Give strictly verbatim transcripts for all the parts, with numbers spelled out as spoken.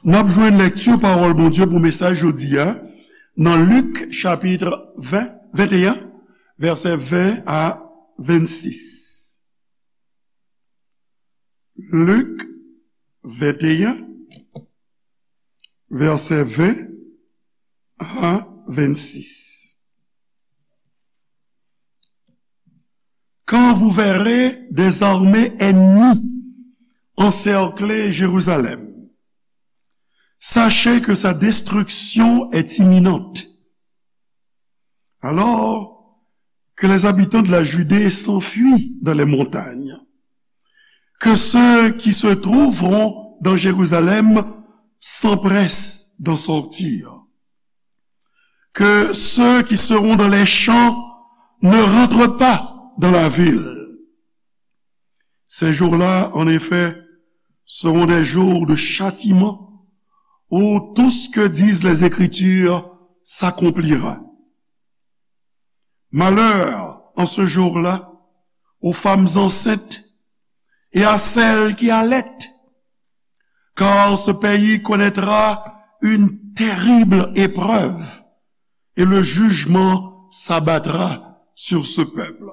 N ap jwenn lekti pawòl Bondye pou mesaj jodi a nan Lik chapit ven, venteyen, vèsè ven a vennsis. Lik venteyen, vèsè ven a vennsis. Quand vous verrez des armées ennemies encercler Jérusalem, sachez que sa destruction est imminente. Alors que les habitants de la Judée s'enfuient dans les montagnes, que ceux qui se trouveront dans Jérusalem s'empressent d'en sortir, que ceux qui seront dans les champs ne rentrent pas dans la ville. Ces jours-là, en effet, seront des jours de châtiment où tout ce que disent les Écritures s'accomplira. Malheur en ce jour-là aux femmes enceintes et à celles qui allaitent, car ce pays connaîtra une terrible épreuve et le jugement s'abattra sur ce peuple.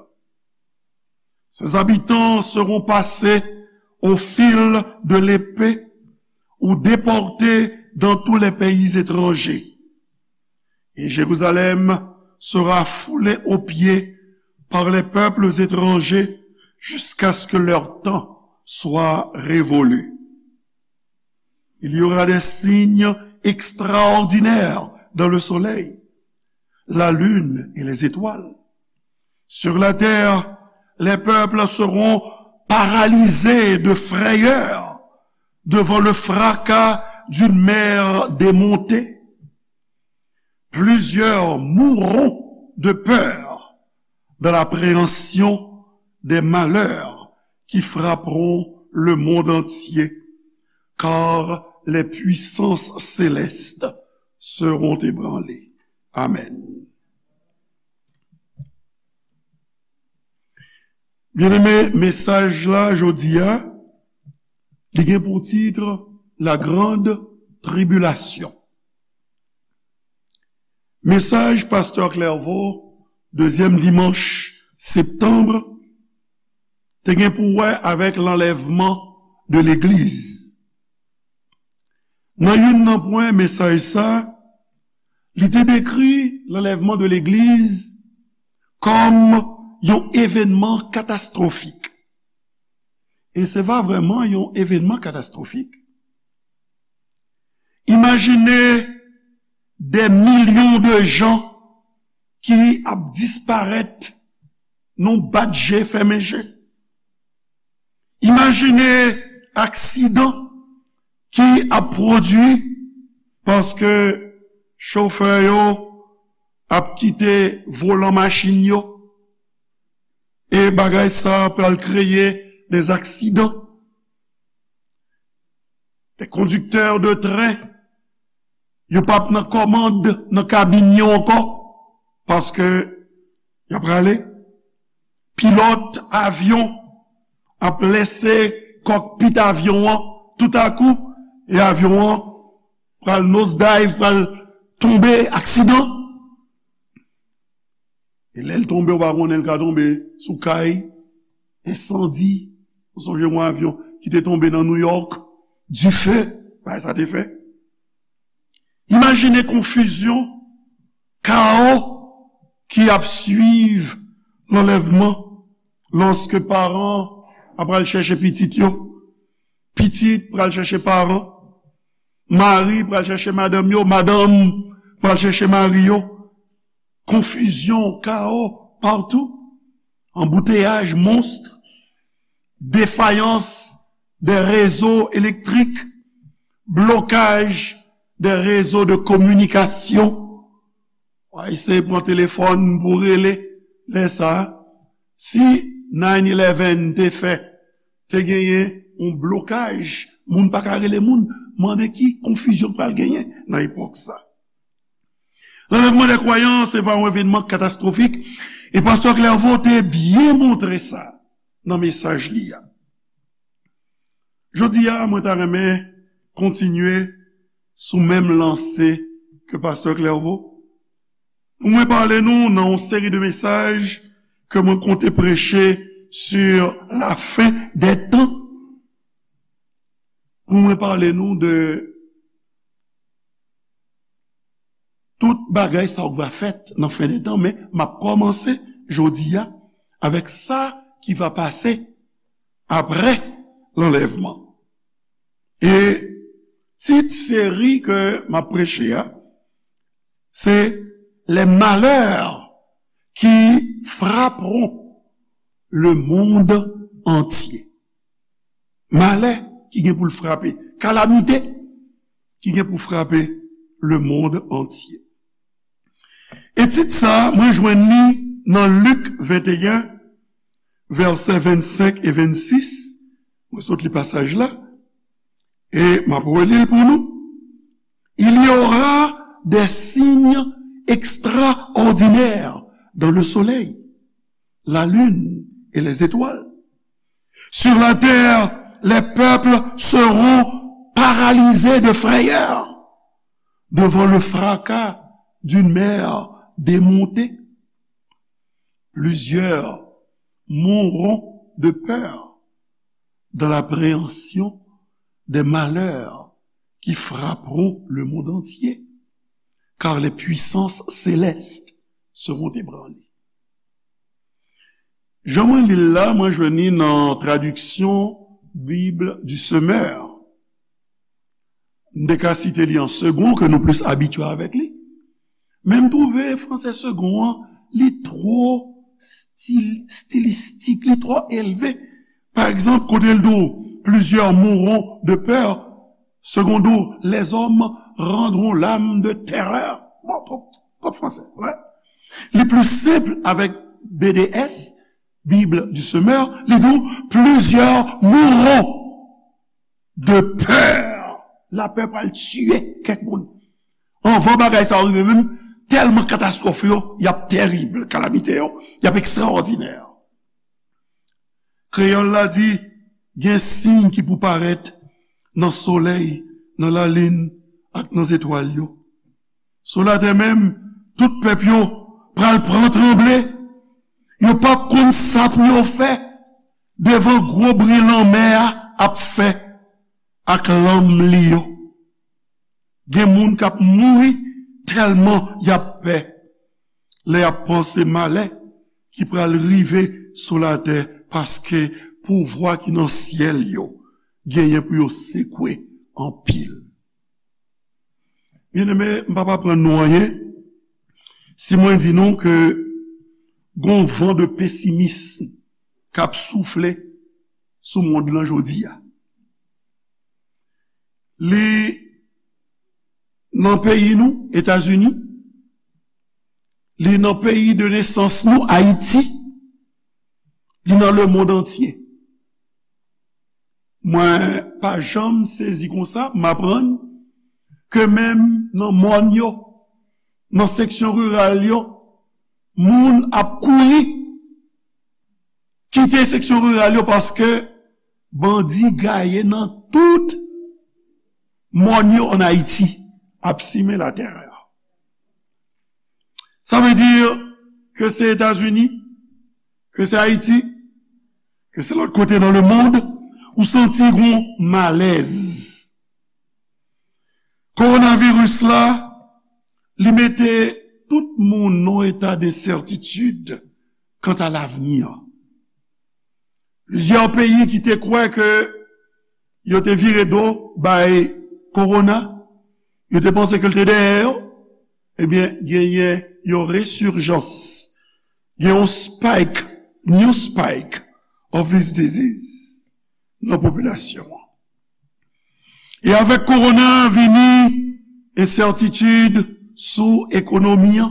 Ses habitants seront passés au fil de l'épée ou déportés dans tous les pays étrangers. Et Jérusalem sera foulée aux pieds par les peuples étrangers jusqu'à ce que leur temps soit révolu. Il y aura des signes extraordinaires dans le soleil, la lune et les étoiles. Sur la terre, les peuples seront paralysés de frayeur devant le fracas d'une mer démontée. Plusieurs mourront de peur dans l'appréhension des malheurs qui frapperont le monde entier, car les puissances célestes seront ébranlées. Amen. Byeneme, mesaj la jodi a, li gen pou tit La Grande Tribulation. Mesaj Pastè Clairvaux, dezyèm dimanch septanm, te gen pou wè avèk lanlèvman de legliz. Nan youn nan pwen mesaj sa, li te dekri lanlèvman de legliz kòm yon evènman katastwofik. E se pa vrèman yon evènman katastwofik. Imajine dè milyon de jan ki ap disparèt nan bat je, fèmen je. Imajine aksidan ki ap pwodui paske chofè yo ap kite volan machin yo. E bagay sa pral kreye des aksidan. Des conducteurs de train, yo p ap nan kòmand nan kabin yo ankò, paske y ap rale. Pilòt avyon ap lese kòkpit avyon an toutakou, e avyon an pral nosedive, pral tonbe, aksidan. E lè l tonbe, ou pa konnen, l ka tonbe sou kay, ensandi. Ou sonje yon avyon ki te tonbe nan New York, dife, bagay sa te fè. Imajine konfizyon, kawo ki ap swiv lanlèvman lòske paran ap al chèche pitit yo, pitit pral chèche paran, mari pral chèche madanm yo, madanm pral chèche mari yo. Konfizyon, kawo patou, anbouteyaj, monstre, défaillance des réseaux électriques, blocage des réseaux de communication. W a eseye pran telefòn pou rele lè sa a. Si nine eleven te fè, te genyen yon blokaj, moun pa ka rele moun, mande ki konfizyon k pral genyen nan epòk sa. Lanlèvman dè kwayan se va yon evènman katastwofik, e pastè Clairvaux te byen montre sa nan mesaj li a. Jodi a, mwen ta renmen kontinye sou menm lanse ke Pastè Clairvaux. Pou mwen pale nou nan yon seri de mesaj ke mwen konte preche sur la fin des temps. Pou mwen pale nou de tout bagay sa k va fèt nan fen de tan, men m ap kòmanse jodi a avèk sa ki va pase apre lanlèvman. E tit seri ke m ap preche a, se Les malheurs qui frapperont le monde entier. Malè ki gen pou l frape, kalamite ki gen pou frape le monde entier. E tit sa, mwen jwenn li nan Lik venteyen, vèsè vennsenk e vennsis. Mwen sot li pasaj la, e m ap reli l pou nou. Il y aura des signes extraordinaires dans le soleil, la lune et les étoiles. Sur la terre, les peuples seront paralysés de frayeur devant le fracas d'une mer démontée. Plusieurs mourront de peur dans l'appréhension des malheurs qui frapperont le monde entier, car les puissances célestes seront ébranlées. Jan mwen li l la, mwen jwenn li nan tradiksyon Bible du Semeur. M te ka site li an segon, ke nou plis abitye avèk li. Men m twouve fransè segon an, li twò stil-, stilistik, li twò elve. Pa egzanp, kote l di w, plusieurs mourront de peur, segon di w, les hommes rendront l'âme de terreur. Bon, twòp, twòp fransè, wè. Li plis senp avèk B D S, Bible du Semeur, li di w, plusieurs mourront de peur. Lapè pral tiye kèk moun. Anvan bagay sa yo rive menm, tèlman katastwòf yo, y ap terib, kalamite yo, y ap ekstraòdinè. Kreyòl la di, gen siy ki pou parèt nan solèy, nan lalin ak nan zetwal yo. Sou latè menm, tout pèp yo pral pran tranble. Yo p ap konn sa pou yo fè devan gwo bri lanmè a ap fè ak lanm li yo. Gen moun k ap mouri tèlman y ap pè lè y ap panse malè ki pral rive sou latè, paske pouvwa ki nan syèl yo genyen pou yo sekwe anpil. Byeneme, m p ap aprann nou anyen si mwen di nou ke gon van de pesimism k ap soufle sou mond lan jodi a. Li nan peyi nou, Etazini, li nan peyi de nesans nou, Ayiti, li nan lemonn antye. Mwen pa janm sezi konsa, m aprann ke menm nan mòn yo, nan seksyon riral yo, moun ap kouri kite seksyon riral yo paske bandi gaye nan tout mòn yo ann Ayiti ap simen latèrè. Sa vle di ke se Etazini, ke se Ayiti, ke se lòt kote nan lemonn, ou santi gon malèz. Kowonaviris la, li mete tout moun nan yon eta densètitid kanta lavni an. Plizyè peyi ki te kwè ke yo te vire do bay kowona, yo te panse ke l te dèyè yo, ebyen, genyen yon resurjans, gen yon spike, new spike of this disease nan popilasyon an. E avèk kowona vini ensètitid sou ekonomi an,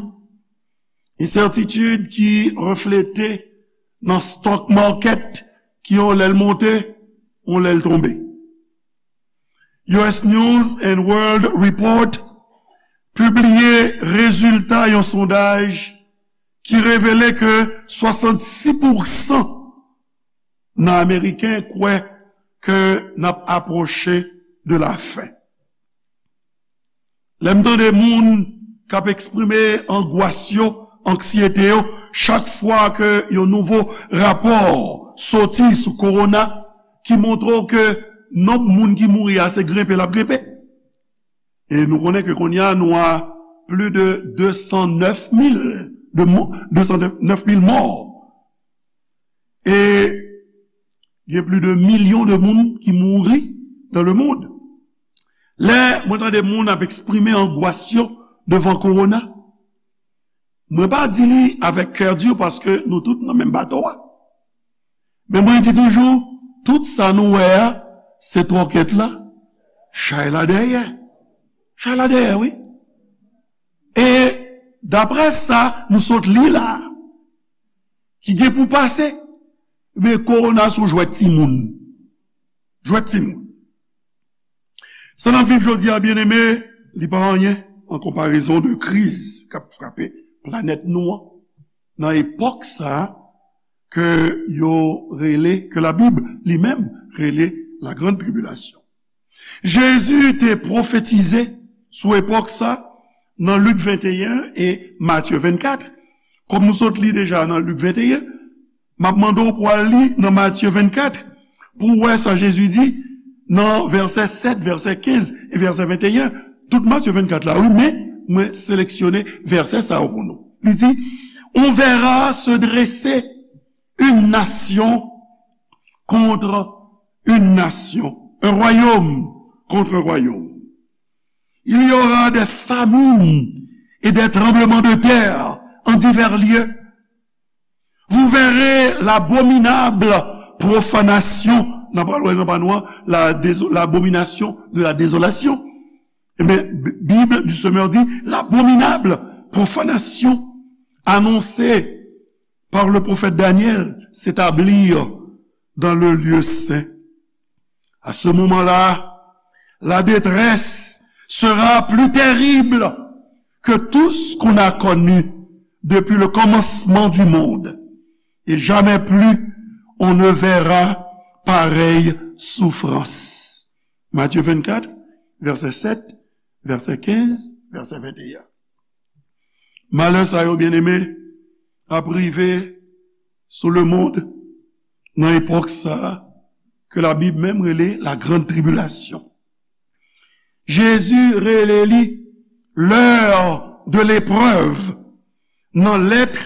ensètitid ki reflete nan stock market ki yon lè l monte, yon lè l tonbe. U S News and World Report pibliye rezilta yon sondaj ki revele ke swasannsis pousan nan Ameriken kwè ke n ap apwoche de la fen. Lè m tande moun k ap eksprime angwas yo, anksyete yo, chak fwa ke yon nouvo rapò soti sou kowona ki montre w ke nonb moun ki mouri a se grenpe l ap grenpe. E nou konnen ke kounye a nou a plis de de san nèf mil de mò, de san nèf mil mò. E gen plis de milyon de moun ki mouri dans le monde. Lè mwen tande moun ap eksprime angwas yo devan kowona, mwen pa di li avèk kè di paske nou tout nan menm bato a. Men mwen di toujou, tout sa nou wè a, se twòkèt la, chay la dèyè. Chay la dèyè, wi. E daprè sa nou sot li la, ki gen pou pase, men kowona se yon jwèt timoun. Jwèt timoun. Sa n ap viv jodi a, byeneme, li pa anyen an konparezon de kriz k ap frape planèt nou an nan epòk sa a ke yo rele, ke Labib li menm rele la grande tribulation. Jezi te pwofetize sou epòk sa nan Lik venteyen e Matye vennkat. Kòm nou sot li deja nan Lik venteyen, m ap mande w pou w al li nan Matye vennkat pou w wè sa Jezi di nan vèsè sèt, vèsè kenz e vèsè venteyen. Tout Matye vennkat la, wi, men mwen seleksyone vèsè sa yo pou nou. Li di, on verra se dresser une nation contre une nation, un royaume contre un royaume. Il y aura des famines et des tremblements de terre en divers lieux. Vous verrez l'abominable profanation, nan pa lwen nan pa nou an, la déso- l'abomination de la désolation. Ebyen, Bible du Semeur dit l'abominable profanation annoncée par le prophète Daniel s'établir dans le lieu saint. À ce moment-là, la détresse sera plus terrible que tout ce qu'on a connu depuis le commencement du monde, et jamais plus on ne verra pareille souffrance. Matthieu vingt-quatre, verset sept, verset quinze, verset vingt et un. Malè sa yo, byeneme, ap rive sou lemonn nan epòk sa a ke Labib menm rele la grande tribulation. Jezi rele li l'heure de l'épreuve nan lèt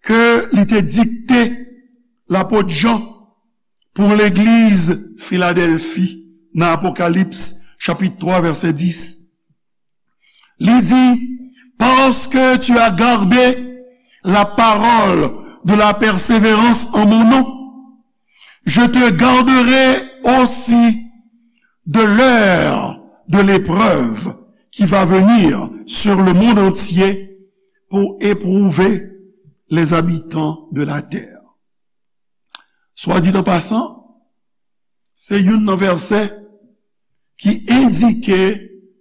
ke li te dikte lapot Jan pou legliz Filadèlfi nan Apokalips chapit twa vèsè dis. Li di, parce que tu as gardé la parole de la persévérance en mon nom, je te garderai aussi de l'heure de l'épreuve qui va venir sur le monde entier pour éprouver les habitants de la terre. Soit dit en passant, se youn nan vèsè ki endike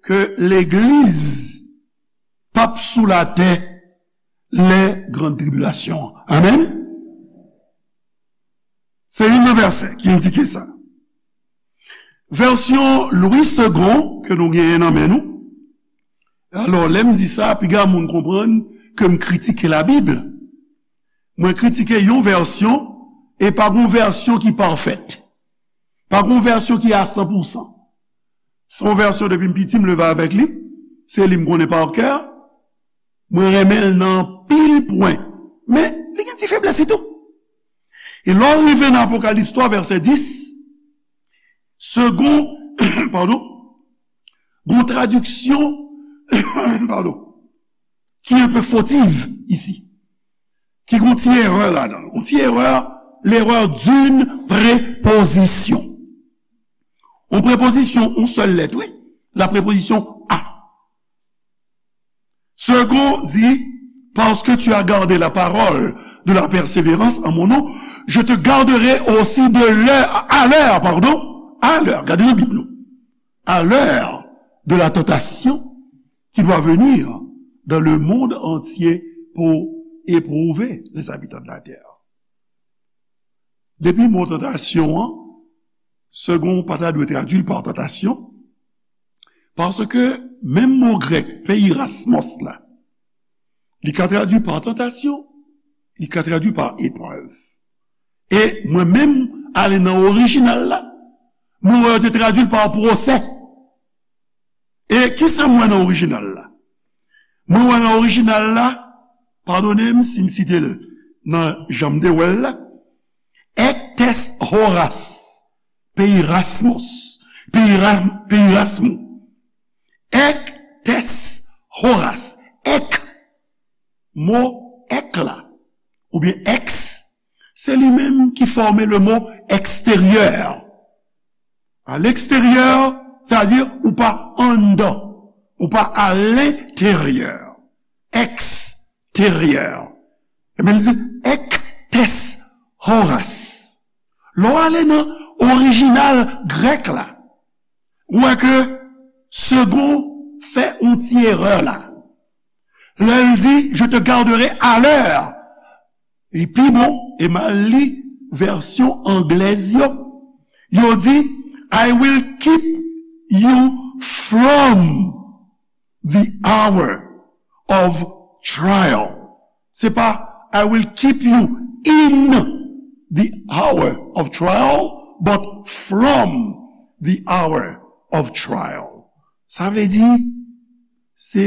ke legliz p ap sou latè lè gran tribilasyon an. Amèn. Se youn nan vèsè ki endike sa. Vèsyon Louis Segond ke nou genyen nan men nou. Alò, lè m di sa, piga moun konprann ke m kritike Labib. Mwen kritike yon vèsyon, e pa gon vèsyon ki pafèt. Pa gon vèsyon ki a san pou san. Se yon vèsyon depi m piti, m leve avèk li. Se li m konnen pa kè. Mwen renmen l nan anpil pwen. Men, li gen ti feblès li tou. E lè w rive nan Apokalips twa, vèsè dis, Segond, padon, gon tradiksyon, padon, ki enpe fotiv isi. Ki gon ti erè ladan l. Yon ti erè, l'erreur d'une préposition. Yon prepozisyon, yon sèl lèt, wi. La préposition à. Segond di, parce que tu as gardé la parole de la persévérance en mon nom, je te garderai aussi de l'heure, à l'heure, pardon, à l'heure, gade nan Bib nou, à l'heure de la tentation qui doit venir dans le monde entier pour éprouver les habitants de la terre. Depi mo tantasyon an, Segond pa ta dwe tradui l pa tantasyon, Paske menm mo grèk peirasmos la, li ka tradui pa tantasyon, li ka tradui pa eprèv. E mwen menm, ale nan orijinal la, mwen wè yo te tradui l pa pwosè. E kisa m wè nan orijinal la? Mwen wè nan orijinal la, padone m si m site l nan jan m te wè l la, ektes horas, peirasmos, peira, peirasmo, ektes horas, ek, mo ek la, oubyen eks, se li menm ki fòme le mo eksteryè. À l'extérieur, sa vle di ou pa anndan, ou pa à l'intérieur, eksteryè. Ebyen, li di, ektes horas. Lè w ale nan orijinal grèk la, ou wè ke Segond fè yon ti erè la. Lè l di, je te garderai à l'heure. Li pi bon, e m al li vèsyon anglèz yo. Yo di, I will keep you from the hour of trial. Se pa, I will keep you in the hour of trial, but from the hour of trial. Sa vle di, se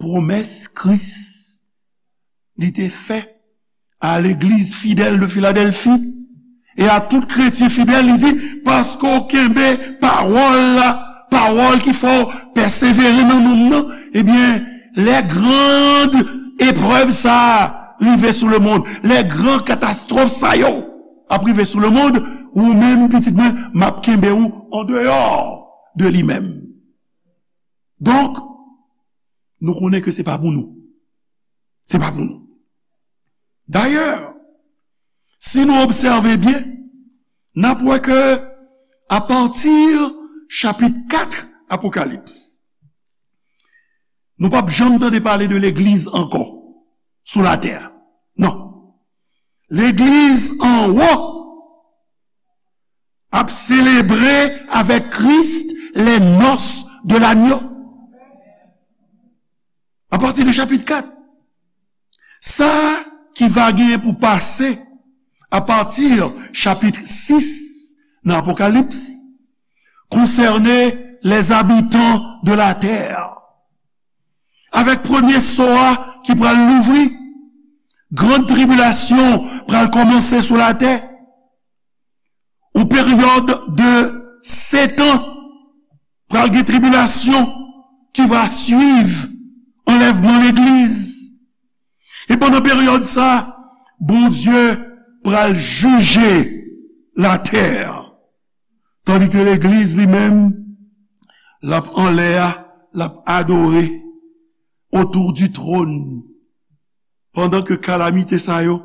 pwomès Kris li te fè a legliz fidèl de Filadèlfi e a tout kretyen fidèl, li di, paske w kenbe pawòl la, pawòl ki fè w pèsevere nan nonm nan, ebyen, lè grand eprèv sa a rive sou lemonn, lè gran katastwòf sa yo ap rive sou lemonn, ou menm, pitit mwen, m ap kenbe w andeyò de li menm. Donk, nou konnen ke se pa pou nou. Se pa pou nou. Dayè, si nou obsève byen, n ap wè ke apati chapit kat Apokalips, nou p ap janm tande pale de legliz ankò sou latè. Non. Legliz anwo ap selebre avèk Kris les noces de l'agneau. Apati de chapit kat. Sa ki va genyen pou pase apati chapit sis nan Apokalips konsène les habitants de la terre. Avèk premye so a ki pral louvri, gran tribilasyon pral kòmanse sou latè. Yon peryòd de setan, pral gen tribilasyon ki va swiv anlèvman legliz. E pandan peryòd sa, Bondye pral jije latè. Tandike legliz li menm, l ap anlè a, l ap adore autour du trône. Pandan ke kalamite sa yo,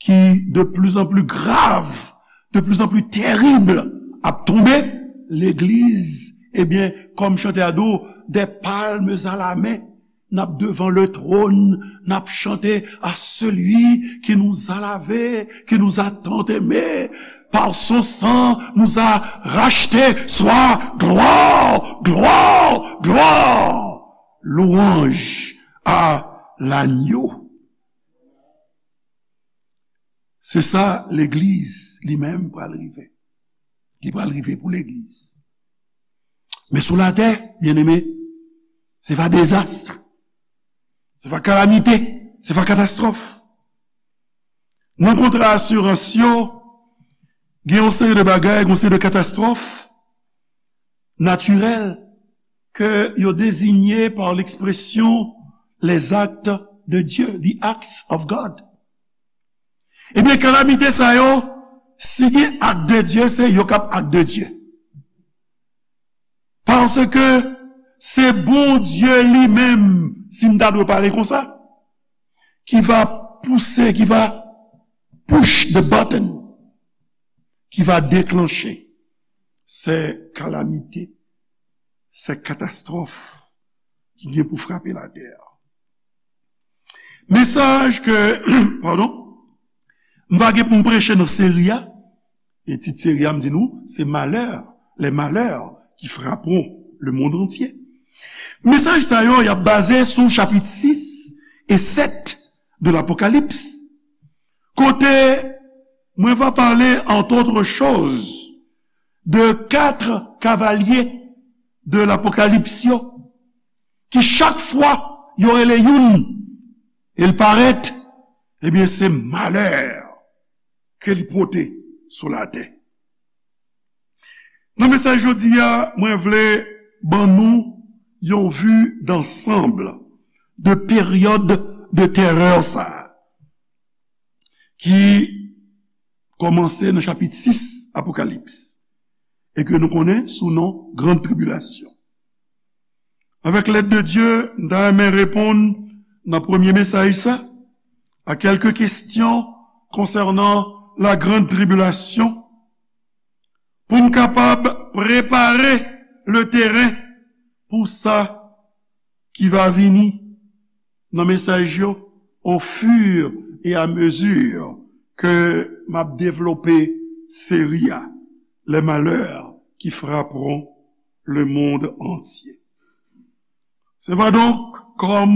ki de plus en plus grav, de plus en plus tèrib, ap tonbe, legliz, ebyen, kòm chantè a di w, des palmes à la main, n ap devan le trône, n ap chante à celui qui nous a lavés, qui nous a tant aimés, par son sang nous a rachetés, soit gloire, gloire, gloire, louange à l'agneau. Se sa legliz li menm pral rive. Li pral rive pou legliz. Men sou latè, byeneme, se va dezas, se va kalamite, se va katastwòf. Nan kontra asirans yo, gen yon seri de bagay, gen yon seri de katastwòf natirèl ke yo dezigne pa lekspresyon les actes de Dieu, the acts of God. Ebyen, kalamite sa yo, si gen ak de Dye, se yo k ap ak de Dye. Paske se Bondye li menm, si m ta dwe pale konsa, ki va pouse, ki va push the button, ki va deklanche se kalamite, se katastwòf ki gen pou frape latè a. Mesaj ke, padon, m va gen pou m preche nan seri a, e tit seri a, m di nou, se malè, les malheurs qui frapperont le monde entier. Mesaj sa yo, y ap baze sou chapit sis e sèt de l'Apocalypse, kote mwen va pale, entre autres choses, de kat kavalye de l'Apocalypse yo, ki chak fwa yo rele youn, e l parèt, ebyen, se malè ke li pote sou latè. Nan mesaj jodi a, mwen vle ban nou yon vue d'ensemble de peryòd de terè sa a, ki kòmanse nan chapit sis Apokalips, e ke nou konnen sou non Grande Tribulation. Avèk lèd de Dye, m ta renmen reponn nan premye mesaj sa a kèlke kesyon konsènan la Grande Tribulation, pou n kapab prepare le teren pou sa ki va vini nan mesaj yo, au fur et à mesure ke m ap devlope seri a, Les malheurs qui frapperont le monde entier. Se va donk kòm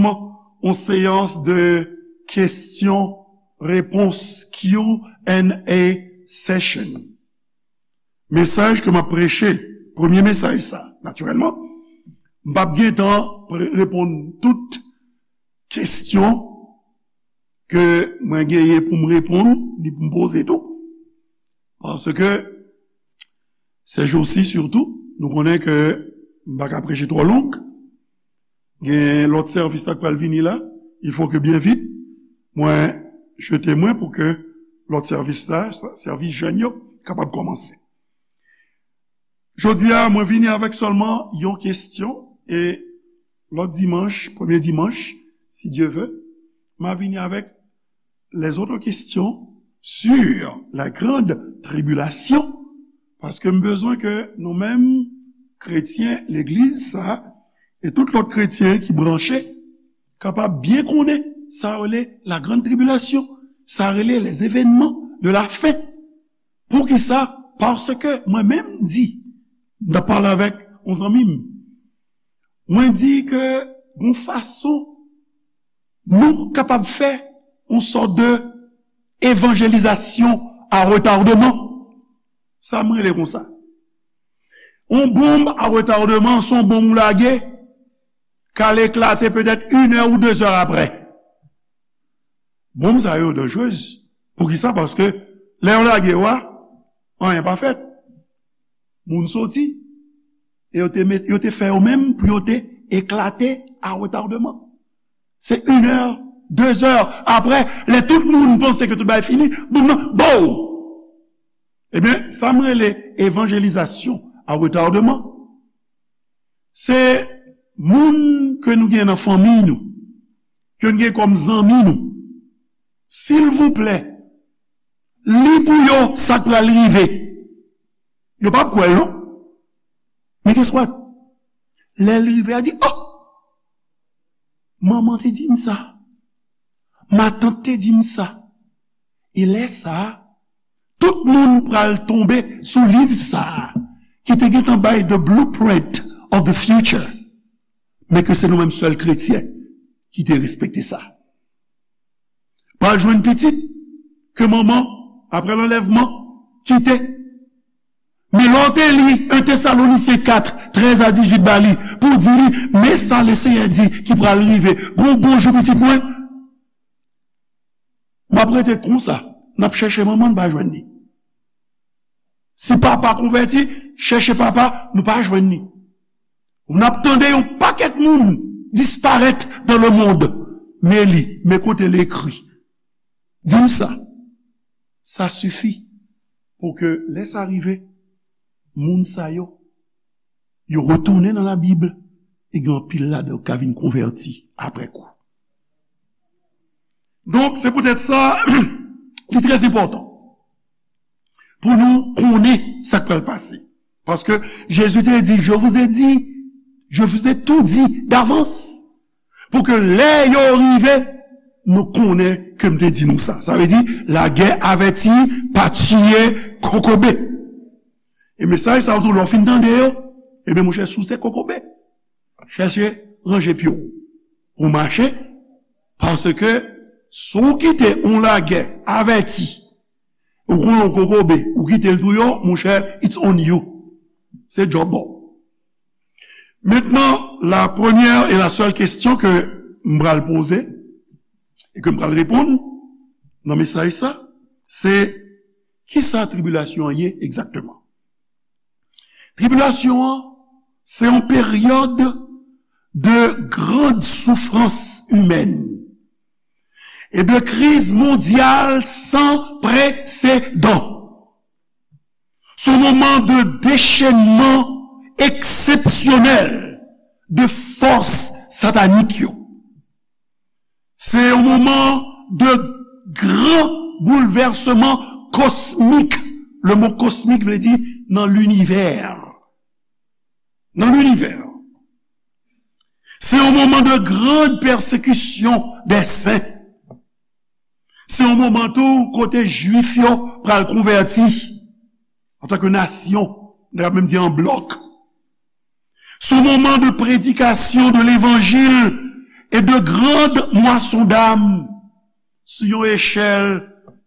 yon seyans de kesyon repons, Q and A session. Mesaj ke m ap preche, premye mesaj sa, natirèlman, m p ap gen tan pre- reponn tout kesyon ke mwen genyen pou m reponn, ni pou m poze tou. Paske, se jou si sitou, nou konnen ke m pa ka preche twò long. Gen lòt sèvis la k pral vini la, il faut que byen vit, mwen jete mwen pou ke lòt sèvis la, sèvis jèn yo, kapab kòmanse. Jodi a, mwen vini avèk sèlman yon kesyon, e lòt dimanch, premye dimanch, si Dye vle, m a vini avèk les autres questions sur la grande tribulation, paske m bezwen ke nou menm, kretyen legliz sa, e tout lòt kretyen ki branche, kapab byen konnen sa rele la grande tribulation, sa rele les événements de la fin. Poukisa? Paske mwen menm di, m t ap pale avèk yon zanmi m, mwen di ke gon fason nou kapab fè yon sòt de evanjelizasyon a retardeman. Sa m rele konsa. Yon bonm a retardeman, se yon bonm ou lage, k al eklate petèt inè ou dezè aprè. Bonm sa yo danjrez. Poukisa? Paske lè yo lage yo a, anyen pa fèt. Moun soti, e yo te met, yo te fè yo menm pou yo te eklate a retardeman. Se inè, dezè aprè, lè tout moun panse ke tout bagay fini, bonm nan, bow! Ebyen, sa m rele evanjelizasyon a retardeman. Se moun ke nou gen nan fanmi nou, ke nou gen kòm zanmi nou, silvouplè, li pou yo sa k pral rive. Yo p ap kwè l non. Men guess what? Lè l rive, a di, oh! Manman te di m sa. Matant te di m sa. E lè sa a, tout moun pral tonbe sou liv sa a, ki te gentan bay the blueprint of the future. Men ke se nou menm sèl kretyen ki te respekte sa. Pral jwenn pitit ke manman, apre lanlèvman, kite. Men lè w te li en Tesalonisyen kat, trèz a dizuit ba li, pou di li, men sa Lesenyè di ki pral rive. Gon bon jou pitit mwen, m ap rete konsa, n ap chèche manman, n pa jwenn li. Si papa konvèti, chèche papa, nou pa jwenn li. N ap tande yon pakèt moun disparèt dans le monde. Men li, men kote l ekri. Di m sa. Sa sifi pou ke lè sa rive, moun sa yo, yo retounen nan Labib, e gen anpil ladan yo ka vin konvèti apre kou. Donk, se poutèt sa, li trè enpòtan pou nou konnen sa k pral pase. Paske Jezi te di, je vous ai dit, je vous ai tout dit d'avance. Pou ke lè yo rive, nou konnen ke m te di nou sa. Sa vle di, lagè avèti pa tiye kokobe. E mesaj sa yo tou, lè w fin tande yo, Ebyen, monchè, si w se kokobe, chèche ranje pye w pou w mache, paske si w kite yon lagè avèti, ou konn yon kokobe, ou kite l touye w, monchè, it's on you. Se djòb ou. Maintenant, la première et la seule question que m pral poze e ke m pral reponn nan mesaj sa, se kisa tribilasyon an ye egzakteman? Tribilasyon an, se yon peryòd de grande souffrance humaine et de crise mondiale sans précédent. Se yon moman de déchaînement exceptionnel de fòs satanik yo. Se yon moman de gran boulvèsman kosmik. Le mot kosmik vle di nan linivè. Nan linivè. Se yon moman de grande persécution des saints. Se yon moman tou kote Jwif yo pral konvèti antanke nasyon, n ta menm di an blòk. Se yon moman de prédication de l'évangile et de grande moisson d'âmes sou yon echèl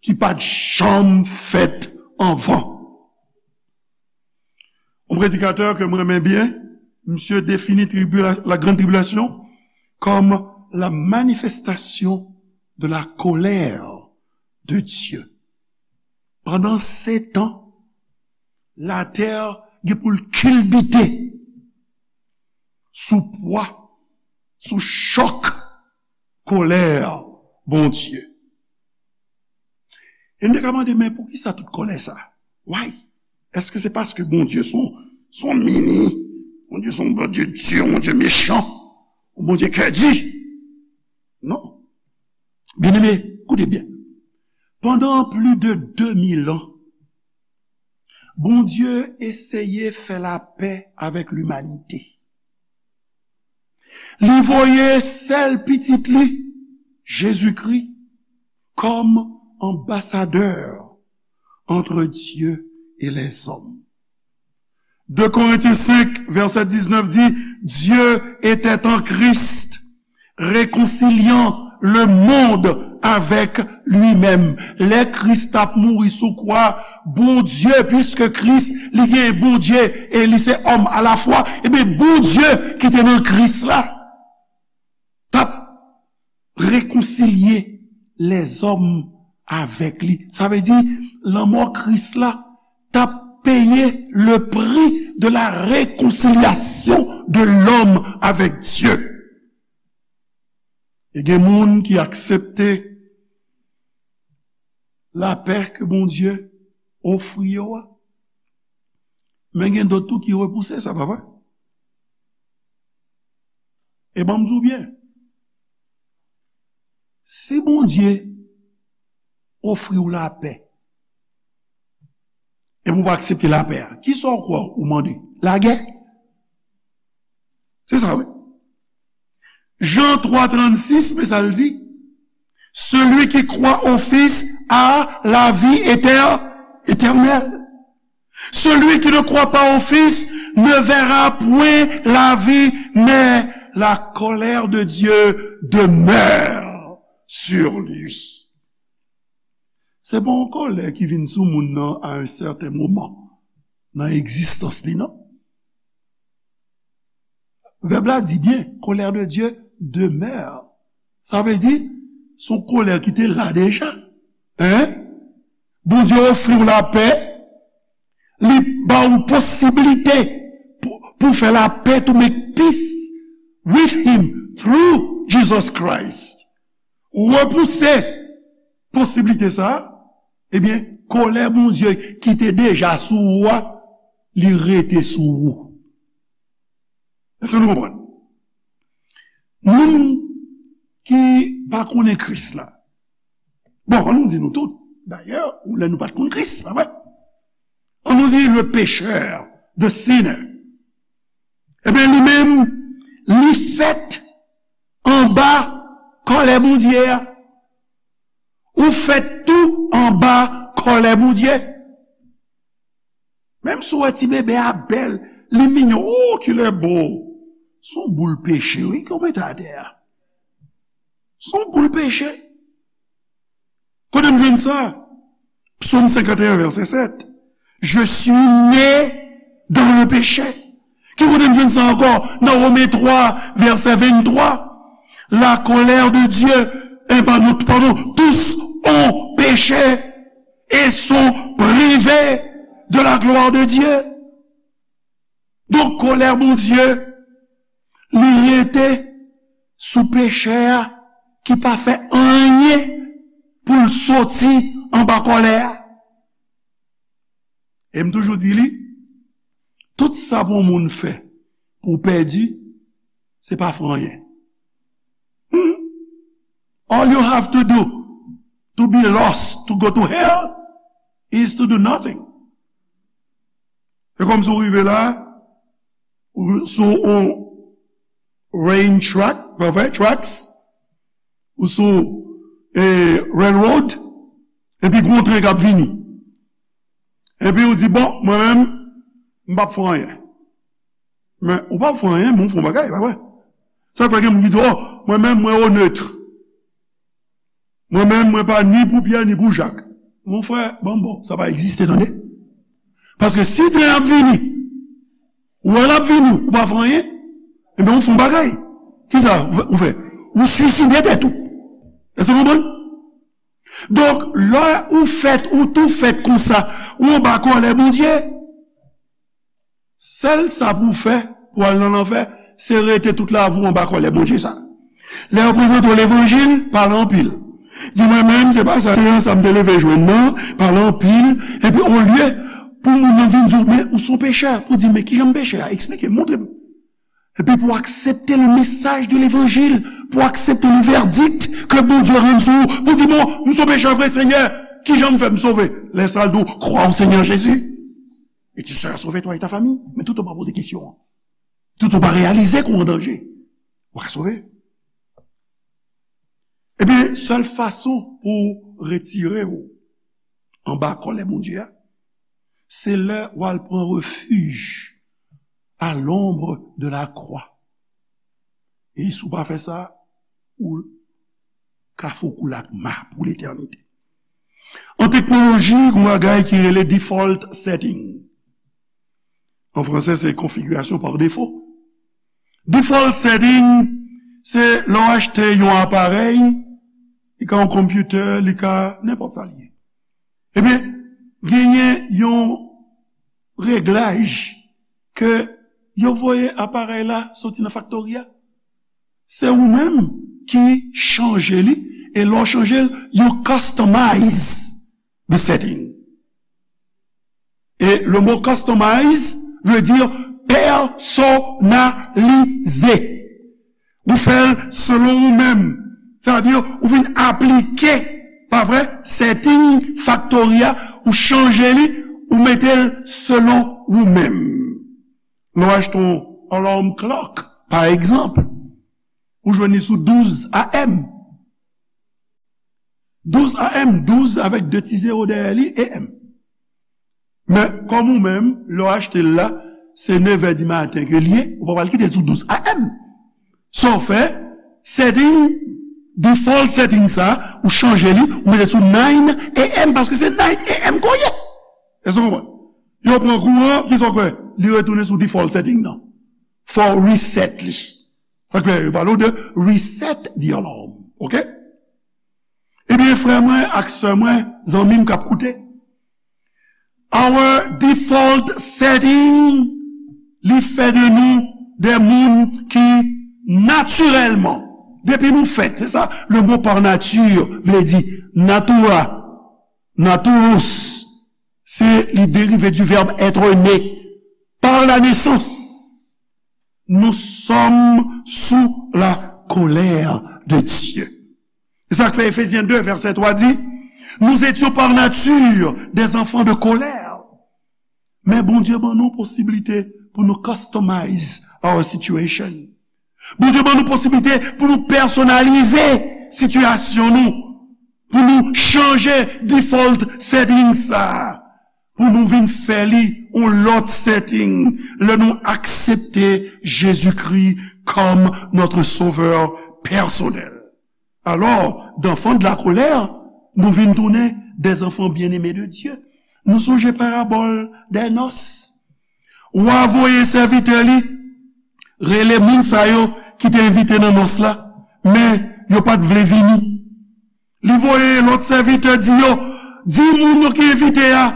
ki pa t janm fèt anvan. Yon predikatè ke m renmen byen, misye defini tribula-, la grande tribulation comme la manifestation de la colère de Dieu. Pandan sèt an, latè gen pou l kilbite sou pwa, sou chòk kolè Bondye. E n te ka mande, men poukisa tout kòlè sa? Why? Èske se paske Bondye se yon, se yon mini? Bondye se yon Bondye di, yon Bondye mechan, yon Bondye kè di? Non. Byeneme, koute byen. Pandan plis de de mil an, Bondye eseye fè lapè avèk limanite. Li voye sèl Pitit li, Jezikri, kòm anbasadè entre Dieu et les hommes. De Corinthiens cinq, verset dix-neuf dit, Dieu était en Christ, réconciliant le monde avec lui-même. Lè Kris t ap mouri sou kwa, Bondye, piske Kris, li gen Bondye e li se òm alafwa, ebyen, Bondye ki te nan Kris la, t ap rekonsilye lèzòm avèk li. Sa vle di, lanmò Kris la t ap peye le prix de la réconciliation de l'homme avec Dieu. E gen moun ki aksepte lapè ke Bondye ofri yo a. Men gen dòt tou ki repouse sa, pa vre? E ban m di w byen, si Bondye ofri w lapè, epi w pa aksepte lapè a, kisa w kwè ou mande? Lagè? Se sa, wi. Jan twa trannsis, men sa l di, celui qui croit au Fils a la vie éter-, éternelle. Celui qui ne croit pas au Fils ne verra point la vie, mais la colère de Dieu demeure sur lui. Se pa yon kòlè ki vin sou moun nan à un certain moment nan egzistans li, non. Vèb la di byen, colère de Dieu demeure. Sa vle di, se yon kòlè ki te la deja. Hein? Bondye ofri w lapè, li ba w posiblite pou, pou fè lapè, to make peace with him through Jesus Christ. Repouse posiblite sa, ebyen, kòlè Bondye ki te deja sou ou a, li rete sou ou. Èske nou konprann? Moun ki pa konnen Kris la. Bon, an nou di nou tout. Dayè, ou lè nou pa t konn Kris, pa vre? An nou di le pécheur, the sinner. Ebyen, li menm, li fèt anba kòlè Bondye a. Ou fèt tou anba kòlè Bondye. Menm si w wè ti bebe a bèl, Li mignon, oh, ki lè bo. Se yon boul peche, wi, ke w mete atè a. Se yon boul peche. Kote m jwenn sa? Psaume cinquante et un, verset sept. Je suis né dans le péché. Ki kote m jwenn sa ankò? Nan Women twa, vèsè venntwa. La colère de Dieu, eh, pardon, pardon, tous ont péché et sont privés de la gloire de Dieu. Donk, kòlè Bondye, li rete sou pechè a ki pa fè anyen pou l soti anba kòlè a. E m toujou di li, tout sa pou yon moun fè pou w pèdi, se pa fè anyen. Hmm. All you have to do to be lost, to go to hell, is to do nothing. E kòmsi w rive la, ou sou on rain track, pa vre, tracks, ou sou, eh, railroad, epi gon tren k ap vini. Epi ou di, bon, mwen menm, m p ap fè anyen. Men, ou p ap fè anyen, men ou fè yon bagay, pa vre? Sa k fè gen moun ki di, oh, mwen menm, mwen onèt. Mwen menm, mwen pa ni pou Pyè, ni pou Jak. Mon frè, bon, bon, sa pa egziste, tande. Paske si tren ap vini, ou wè l ap vini, ou pa fè anyen, ebyen, ou fè yon bagay. Kisa ou fè? Ou fè? Ou swiside tèt ou. Èske w konprann? Donk, lè ou fèt, ou tou fèt konsa, ou anba kòlè Bondye. Sèl sa pou w fè pou w al nan lanfè, se rete tout lavi w anba kòlè Bondye sa. Lè yo prezante w levanjil, pale anpil. Di, mwen menm, se pa sa, se nan sa m te leve jwenn nan, pale anpil. Epi, olye pou moun nan vin di w, men ou se yon pechè, pou w di, men kijan m peche a? Eksplike m, montre m. Epi pou w aksepte le message de l'évangile, pou w aksepte le verdict ke Bondye rann sou ou, pou w di, bon, m se yon pechè vre, Senyè, kijan m fè m sove? Lè sa l di w, crois au Seigneur Jésus. Et tu seras sauvé, toi et ta famille. Men tout ou pa poze kesyon an. Tout ou pa reyalize ke w an danje. Ou ka sove. Ebyen, sèl fason pou w retire w anba kòlè Bondye a, se lè w al pran refij à l'ombre de la croix. E si w pa fè sa, ou ka foukou lakma pou letènite. An teknoloji, gen yon bagay ki rele default setting. An fransè, se configuration par défaut. Default setting, se lè w achte yon aparèy, li ka yon konpitè, li ka nenpòt sa li ye. Ebyen, genyen yon reglaj ke yo voye aparèy la soti nan faktori a. Se ou menm ki chanje li, e lè w chanje l, you customize the setting. E le mot customize veut dire personnaliser. Ou fè l selon ou menm. Sa vle di, ou vin aplike, pa vre, setting faktori a, ou chanje li, ou mete l selon ou menm. Lè w achte yon alarm clock, pa egzanp, ou jwenn li sou douz A M. Douz A M, douz avèk de ti zewo dèyè li, A M. Men, kòm ou menm, lè w achte l la, se nevè di maten ke l ye, ou pa pral kite l sou douz A M. Sa w fè, setting, default setting sa, ou chanje li, ou mete sou nine A M, paske se nine A M ke w ye. Èske w konprann? Yo pran kouran, kisa w kwè? Li retounen sou default setting nan. Fò w reset li. Sa k fè yo pale w de reset the alarm. Oke? Ebyen, frè mwen ak sè mwen, zanmi m k ap koute, our default setting, li fè de nou de moun ki natirèlman, depi nou fèt, se sa, le mot par nature vle di, natura, naturus, se, li derive du verbe être né, par la naissance. Nous sommes sous la colère de Dieu. Se sa k fè Efezyen de, vèsè twa di, nous étions par nature des enfants de colère. Men Bondye ban nou posiblite pou nou customize our situation. Bondye ban nou posiblite pou nou pèsonalize sitiyasyon nou, pou nou chanje default setting sa a. pou nou vin fè li yon lòt setting lè nou aksepte Jezikri kòm notre Sauveur personnel. Alò, d'enfants de la colère, nou vin tounen des enfants bien-aimés de Dieu. Nou sonje parabòl dè nòs. Wa voye sèvitè li rele moun sa yo ki te envite nan nòs la, men yo pa t vle vini. Li voye lòt sèvitè di yo, di moun yo ki envite a,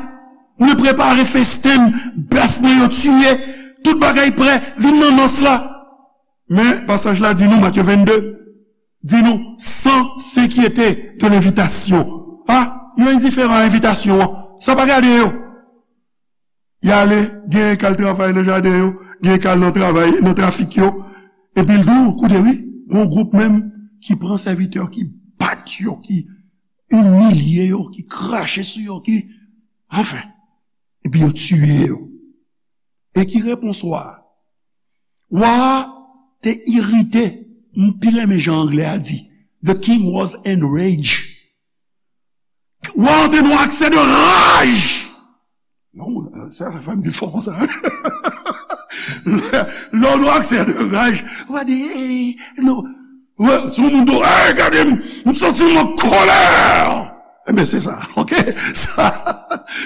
mwen prepare festen, bèf mwen yo tiye, tout bagay prè, vin nan nòs la. Men pasaj la di nou, Matye vennde, di nou, sans s'inquiéter de l'invitation. A, yo endiferan a envitasyon an. Sa pa gade yo. Y ale, gen k al travay nan jaden yo, gen k al nan travay, nan trafik yo. Epi l di w, koute wi, gon gwoup menm ki pran sèvitè yo, ki bat yo, ki imilye yo, ki krache sou yo, ki, anfen, epi yo tiye yo. E ki repons wa a? Wa a te irite, m pi renmen jan anglè a di, the king was enraged. Wa an te nan aksè de raj. Non, sa fè m di l fò konsa. Lè w nan aksè de raj, w a di, hey, non. Wè, si yon moun di w, hey, gade m, m santi m an kòlè. Ebyen, se sa, ok? Sa,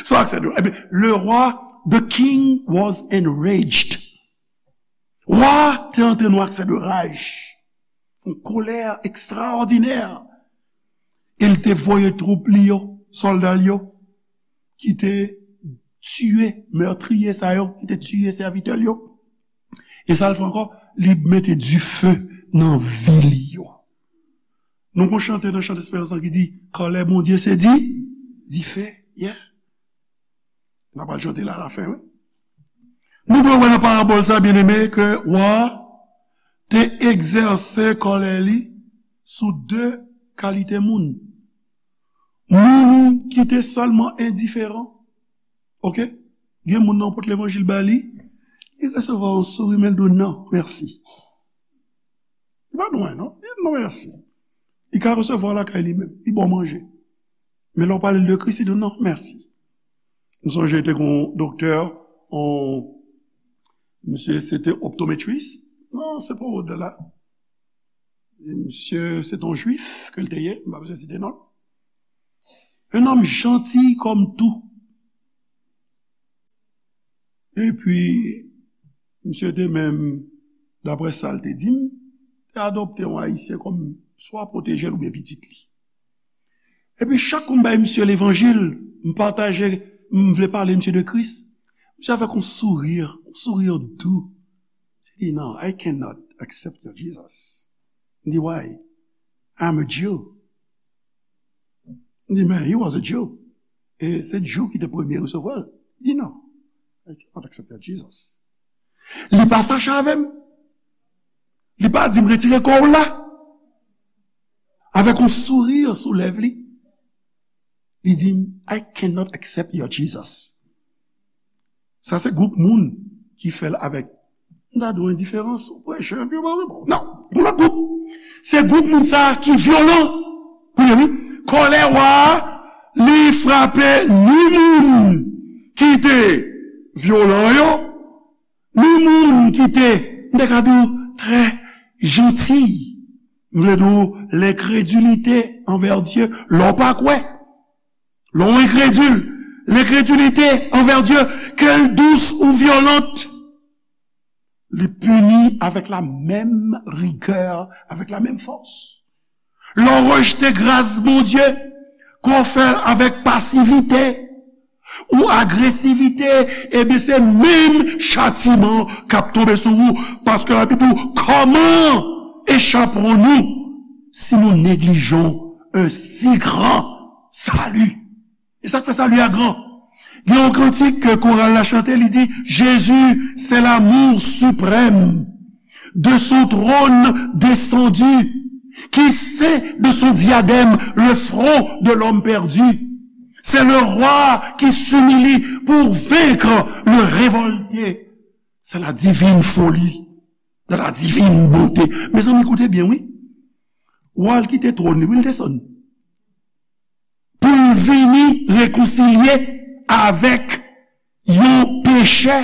se yon aksè de, ebyen, le roi, the king was enraged. Wa te antre nan aksè de raj, yon kolè ekstraòdinè. E l te voye twoup li yo, sòlda l yo, ki te tiye, mètriye sa yo, ki te tiye sèvitè l yo. E sa l fè ankò, li mete dife nan vil yo. Nou gon chante nan Chant Esperans lan ki di, kòlè Bondye se di, dife, yeah. N a pral chante la alafen, wi. Nou dwe wè nan parabòl sa, byeneme, ke wa a te egzèse kòlè li sou de kalite moun. Moun ki te sèlman endiferan. Ok? Gen moun nan w pot levanjil ba li, li resevwa yon souri, men l di w non, mèsi. Li pa dwen, non. Li di non, mèsi. Li ka resevwa w lakay li menm. Li ba w manje. Men lè w pale l de Kris, li di w non, mèsi. M sonje te gon doktè, on, misye se te optometrist. Non, se pa wòd la. Misye se te yon jwif ke l te ye, m pa bezwen site non l. Un homme gentil comme tout. Epi, misye te menm, daprè sa l te di m, te adopte yon Ayisyen kòm swa pwoteje l oubyen pitit li. Epi, chak kou m bay misye levanjil, m pataje, m vle pale misye de Kris, misye avèk yon souri, yon souri dou. Misye di, non, I cannot accept your Jesus. M di, why? I'm a Jew. M di, men, he was a Jew. E se Jew ki te premye resevwa l. Li di, non. I cannot accept that Jesus. Li pa fache avè m. Li pa di m retire kò w la. Avèk yon souri sou lèv li. Li di m, I cannot accept your Jesus. Sa se gwoup moun ki fè l avèk, m ta di w endiferans, ou preche, epi ou pa reponn. Non, yon lòt gwoup. Se gwoup moun sa a ki vyolan. Kounye wi, kòlè wa a, li frape ni moun ki te vyolan yo, ni moun ki te, m te ka di w, trè janti. M vle di w, lenkredilite anvè Dye, lè w pa kwè. Lè w enkredil, lenkredilite anvè Dye, ke l dous ou vyolant, li pini avèk la menm rigè, avèk la menm fòs. Lè w rejte gras Bondye, ke w fè l avèk pasivite ou agresivite, ebyen, se menm chatiman k ap tonbe sou ou, paske Labib di w, comment échapperons-nous si nous négligeons un si grand salut? E sa k fè sali a gran. Gen yon kantik ke koral la chante, li di, Jésus, c'est l'amour suprême, de son trône descendu, qui ceint de son diadème le front de l'homme perdu. C'est le roi qui s'humilie pour vaincre le révolté. C'est la divine folie dans la divine bonté. Mezanmi, koute byen, wi. Wa l kite twòn li, wi, l desann. Pou l vini rekonsilye avèk yon pechè,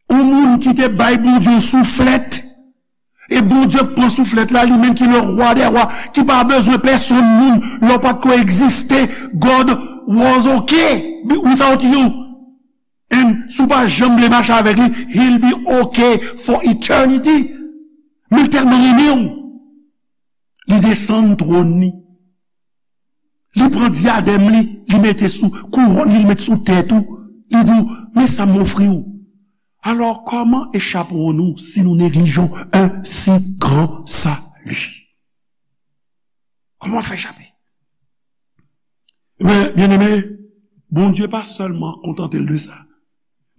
yon moun ki te bay Bondye yon souflèt, e Bondye pran souflèt la, li menm ki le roi des rois, ki pa bezwen pèsonn moun, lè w pa t ko egziste, God was okay without you. And si w pa janm vle mache avèk li, he'll be okay for eternity. Men l tèlman renmen w, li desann twòn li. Li pran dyadèm li, li mete sou kouwòn li, li mete sou tèt ou. Li di w, men sa m ofri w. Alors, comment échapperons-nous si nous négligeons un si grand salut? Kòman fè chape? Men, byeneme, Bondye pa sèlman kontante l de sa.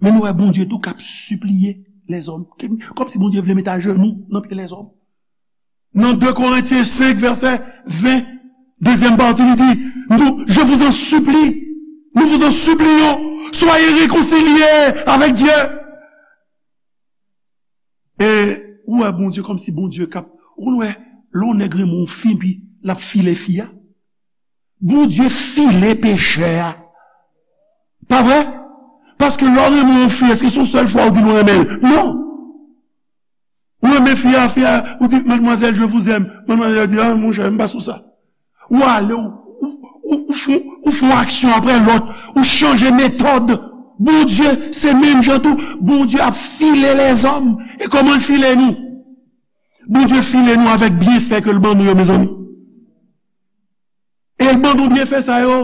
Men nou wè Bondye tou k ap sipliye lèzòm. Kòmsi Bondye vle met ajenou nan pye lèzòm. Nan de Korentyen senk, vèsè ven, dezyèm pati, li di, nous, je vous en supplie, nous vous en supplions, soyez réconciliés avec Dieu. E ou wè Bondye kòmsi Bondye k ap, ou konn wè, lè yon nèg renmen yon fi, epi l ap file fi a. Bondye file pechè a. Pa vre? Paske lè w renmen yon fi, èske se yon sèl fwa ou di l ou renmen l? Non. Ou renmen fi a, fi a, ou di, mademoiselle, je vous aime. Mademoiselle di, ah, monchè, m pa sou sa. Ou ale, ou, ou, ou, ou fè, ou fè yon aksyon apre lòt, ou chanje metòd. Bondye, se menm jan tou, Bondye ap file lèzòm. E kòman l file nou? Bondye file nou avèk byenfè ke l ban nou yo, mezanmi. E l ban nou byenfè sa yo,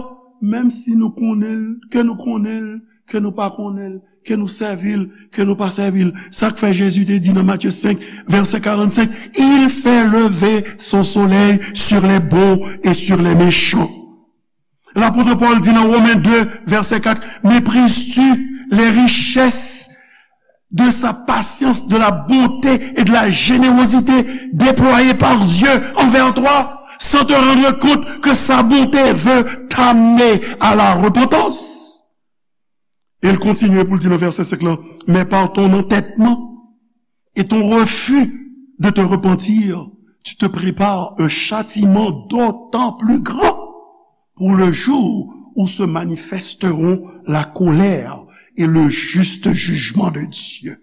menm si nou konnen l, ke nou konnen l, ke nou pa konnen l, ke nou sèvi l, ke nou pa sèvi l. Sa k fè Jezi te di nan Matye senk, vèsè karannsenk, il fait lever son soleil sur les bons et sur les méchants. Lapot Pòl di nan Women de, vèsè kat, méprises-tu les richesses de sa patience, de la bonté et de la générosité déployées par Dieu envers toi, sans te rendre compte que sa bonté veut t'amener à la repentance? E l kontinye pou l di nan vèsè senk lan, mais par ton entêtement et ton refus de te repentir, tu te prépares un châtiment d'autant plus grand pour le jour où se manifesteront la colère et le juste jugement de Dieu.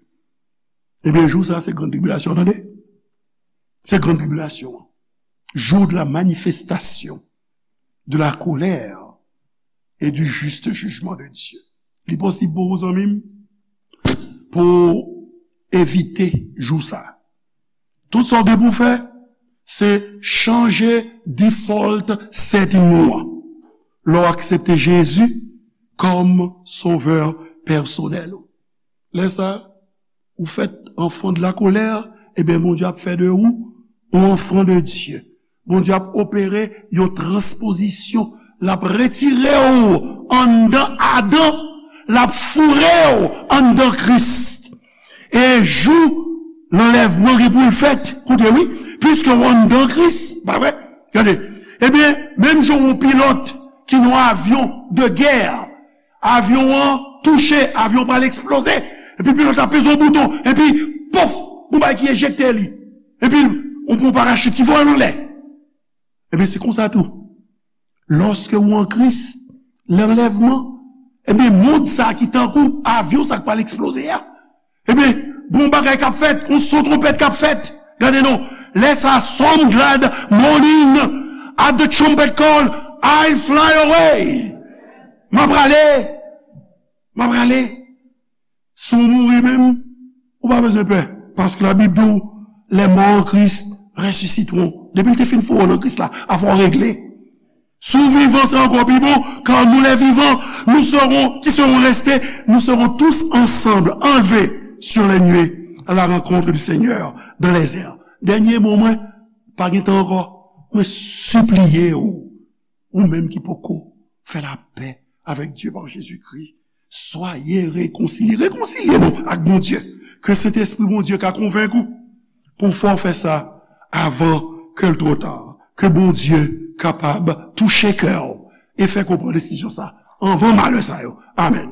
Ebyen, jou sa a, se grann tribilasyon, tande. Se grann tribilasyon an. Jour de la manifestation de la colère et du juste jugement de Dieu. Li posib pou ou, zanmi m, pou w evite jou sa a. Tout sa w gen pou w fè, se chanje default setting ou an. Lè w aksepte Jezi kòm sovè pèsonèl ou. Lè sa a, ou fèt enfant de la colère, ebyen, Bondye ap fè de ou yon enfant de Dieu. Bondye ap opere yon transpozisyon. L ap retire w anndan Adan, l ap foure w anndan Kris. E jou lanlèvman gen pou l fèt, koute wi, piske w anndan Kris, pa vre? Gade, ebyen, menm jan yon pilòt ki nan yon avyon de gè, avyon an touche, avyon pral eksploze, epi pilòt la peze yon bouton, epi, pof, yon bagay ki ejekte li, epi yon, yon parachit ki voye l anlè. Ebyen, se konsa tou. Lòske ou an Kris, lanlèvman, ebyen, mond sa ki tankou avyon sa k pral eksploze a, ebyen, gon bagay k ap fèt, yon son twonpèt k ap fèt. Gade non, lè sa, some glad morning at the trumpet call, I fly away. M ap prale, m ap prale. Si w mouri menm, ou pa bezwen pè, paske Labib di w, les morts en Christ ressusciteront. Depi l te fin foure w nan Kris la, afè w regle. Si w vivan, se ankò pi bon, car nous les vivants, nous serons, qui serons restés, nous serons tous ensemble enlevés sur les nuées à la rencontre du Seigneur dans les airs. Dènye mo mwen, pa gen tan ankò, mwen sipliye w, ou menm ki poko fè lapè avèk Dye pa Jezikri, soyez réconciliés. Rekonsilye nou ak Bondye. Ke Sentespri Bondye ka konvenk ou pou w fè w fè sa avan ke l twò ta. Ke Bondye kapab touche kè w e fè w pran desizyon sa anvan malè sa yo. Amèn.